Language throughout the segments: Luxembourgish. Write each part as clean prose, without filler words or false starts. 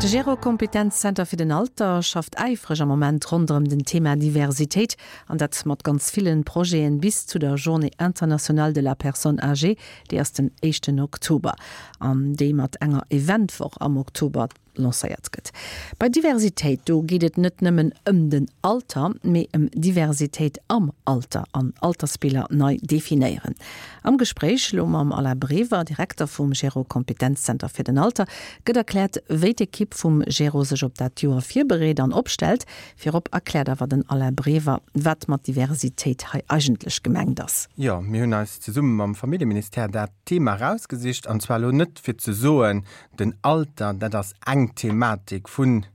De Gero-Kompetenzzenter fir den Alter schafft äifreg am Moment ronderëm den Thema Diversitéit, an dat mat ganz villen Projeten bis zu der Journée internationale de la personne âgée, déi ass den éischten Oktober, an déi mat enger Eventwoch am Oktober lancéiert gëtt. Bei Diversitéit, do geet et net nëmmen ëm den Alter, mee ëm Diversitéit am Alter an Altersbiller nei definéieren. Am Gespréich elo mam Alain Brever, Direkter vum Gero Kompetenzzenter fir den Alter, gëtt erkläert, wéi d'Ekipp vum Gero sech op dat Joer virbereet an opstellt. Virop erkläert awer den Alain Brever, wat mat Diversitéit hei eigentlech gemengt ass. Jo, mir hunn eis zesumme mam Familljeministère dat Thema erausgesicht, an zwar elo net fir ze soen, Den Alter, dat ass eng Thematik vun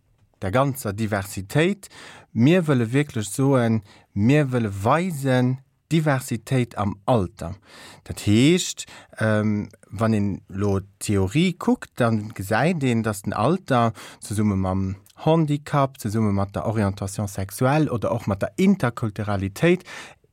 der ganzer Diversitéit. Mir wëlle wierklech soen, mir wëlle weisen, Diversitéit am Alter. Dat heescht, wann een elo d'Theorie kuckt, da gesäit een, datt den Alter zesumme mam Handicap, zesumme mat der Orientation sexuelle oder och mat der Interkulturalitéit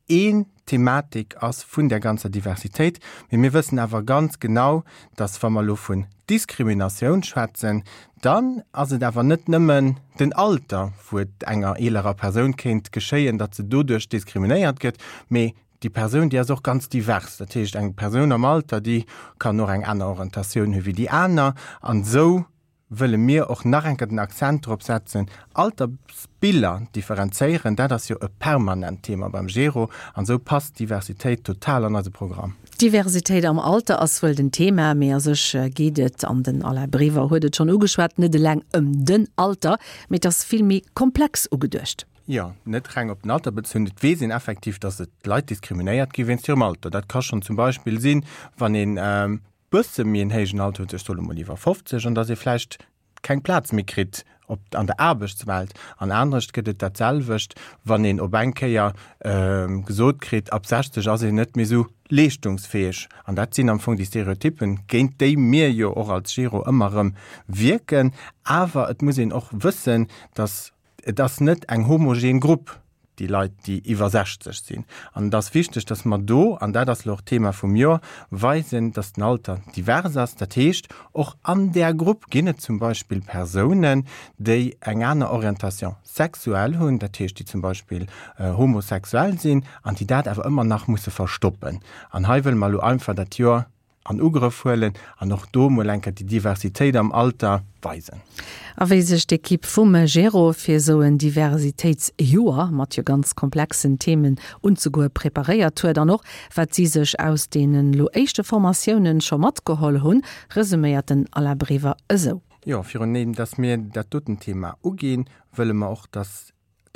een Thematik ass vun där ganzer Diversitéit. Mee mir wëssen awer ganz genau, dass wa mer elo vun Diskriminatioun schwätzen, dann ass et awer net nëmmen den Alter, wou et enger eelerer Persoun kéint geschéien, datt se doduerch diskriminéiert gëtt, mee déi Persoun, déi ass och ganz divers. Dat heescht, eng Persoun am Alter, déi kann och eng aner Orientatioun hu wéi déi aner. An esou wëlle mir och nach eng Kéier den Akzent drop setzen, Altersbiller differenzéieren, dat ass jo e permanent Thema beim Gero an esou passt d'Diversitéit total an eise Programm. D'Diversitéit am Alter ass wuel den Thema, mee a sech geet et, an den Alain Brever huet et schonn ugeschwat, net eleng ëm den Alter, mee et ass vill méi komplex ugeduecht. Jo, net reng op den Alter bezunn. Et weess een effektiv, datt et Leit diskriminéiert gi wéinst hirem Alter. Dat ka schonn zum Beispill sinn, wann een bësse méi en héijen Alter huet, ech soe mol iwwer 50, an datt ee vläicht keng Plaz méi kritt op an der Aarbechtswelt. An anescht gëtt et dat selwecht, wann een op eng Kéier gesot kritt, ab 60 ass een net méi esou leeschtungsfäeg. An dat sinn am Fong déi Stereotyppen, géint déi mir jo och als Giro ëmmer erëm wierken. Awer et muss een och wëssen, datt Et ass net eng homogen Grupp, déi Leit, déi iwwer 60 sinn. An et ass wichteg, dass mer do, an dat ass elo och d'Thema vum Joer, weisen, dass den Alter divers ass. Dat heescht, och an där Grupp ginn et zum Beispill Persounen, déi eng aner Orientation sexuelle hunn, dat heescht, déi zum Beispill homosexuell sinn an déi dat awer ëmmer nach musse verstoppen. An hei wëlle mer elo einfach dat Joer an Ugrëff huelen an och do mol eng Kéier déi Diversitéit am Alter weisen. A wéi sech d'Ekipp vum Gero fir esou en Diversitéitsjoer mat jo ganz komplexen Themen unzegoe preparéiert huet an och wat si sech aus deenen elo éischte Formatiounen scho matgeholl hunn, resuméiert den Alain Brever esou. Jo, virun deem dass mir dat doten Thema uginn, wëlle mer och, dass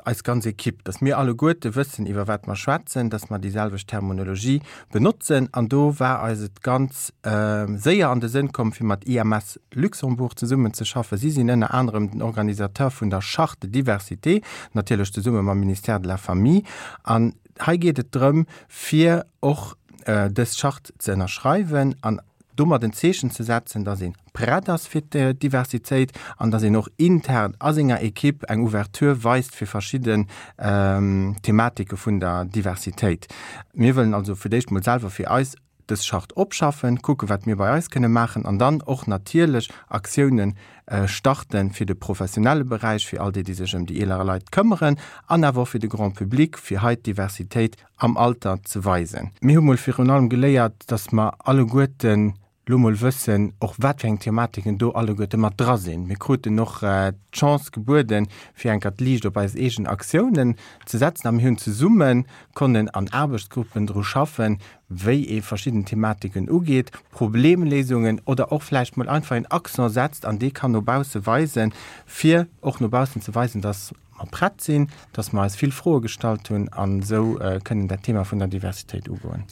eis ganz Ekipp, dass mir alleguerte wëssen, iwwer wat mer schwätzen, dass mer déi selwecht Terminologie benotzen. An do war eis et ganz séier an de Sënn komm, fir mat IMS Luxembourg zesummenzeschaffen. Si sinn ënner anerem den Organisateur vun der Charte de diversité, natierlech zesumme mam Ministère de la Famille. An hei geet et drëm, fir och dës Charte ze ënnerschreiwen an domat en Zeechen ze setzen, dass ee prett ass fir d'Diversitéit an dass een och intern a senger Ekipp eng Ouverture weist fir verschidden Thematike vun der Diversitéit. Mir wëllen also fir d'éischt mol selwer fir eis dës Charte opschaffen, kucken, wat mir bei eis kënne maachen an dann och natierlech Aktiounen starten fir de professionelle Beräich, fir all déi, déi sech ëm déi eelere Leit këmmeren an awer och fir de Grand public, fir hei d'Diversitéit am Alter ze weisen. Mir hu mol virun allem geléiert, dass mer alleguerten lo mol wëssen, och wat fir eng Thematiken do alleguerte mat dra sinn. Mir kruten och d'Chance gebueden, fir eng Kéier d'Liicht op eis eegen Aktiounen ze setzen a mir hunn zesumme konnen an Aarbechtsgruppen dru schaffen, wéi ee verschidden Thematiken ugeet, Problemléisungen oder och vläicht mol einfach een Accent setzt an dee kann no bausse weisen, fir och no baussen ze weisen, dass mer prett sinn, dass mer eis vill Froe gestallt hunn an esou kënnen dat Thema vun der Diversitéit ugoen.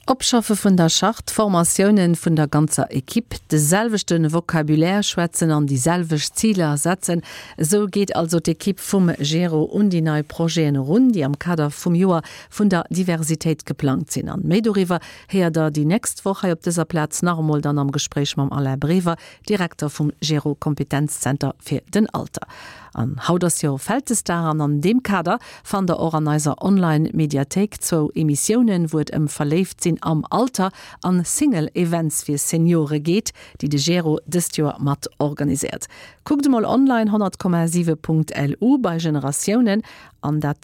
Opschaffe vun der Charte, Formatiounen vun der ganzer Equipe, de selwechte Vocabulaire schwätzen an déi selwecht Ziler setzen, esou geet also d'Equipe vum Gero un déi nei Projeten erun, déi am Kader vum Joer vun der Diversitéit geplangt sinn. An méi doriwwer héiert der déi nächst Woch hei op dëser Plaz nach emol dann am Gespréich mam Alain Brever, Direkter vum Gero Kompetenzzenter fir den Alter. An haut ass jo Vältesdag an an deem Kader fannt der och an eiser Online Mediathéik zwou Emissiounen, wou et ëm Verléift sinn. sinn am Alter an Single Events fir Seniore geet, déi de Gero dëst Joer mat organiséiert. Kuckt emol online 100,7.lu bei Generatiounen an dat.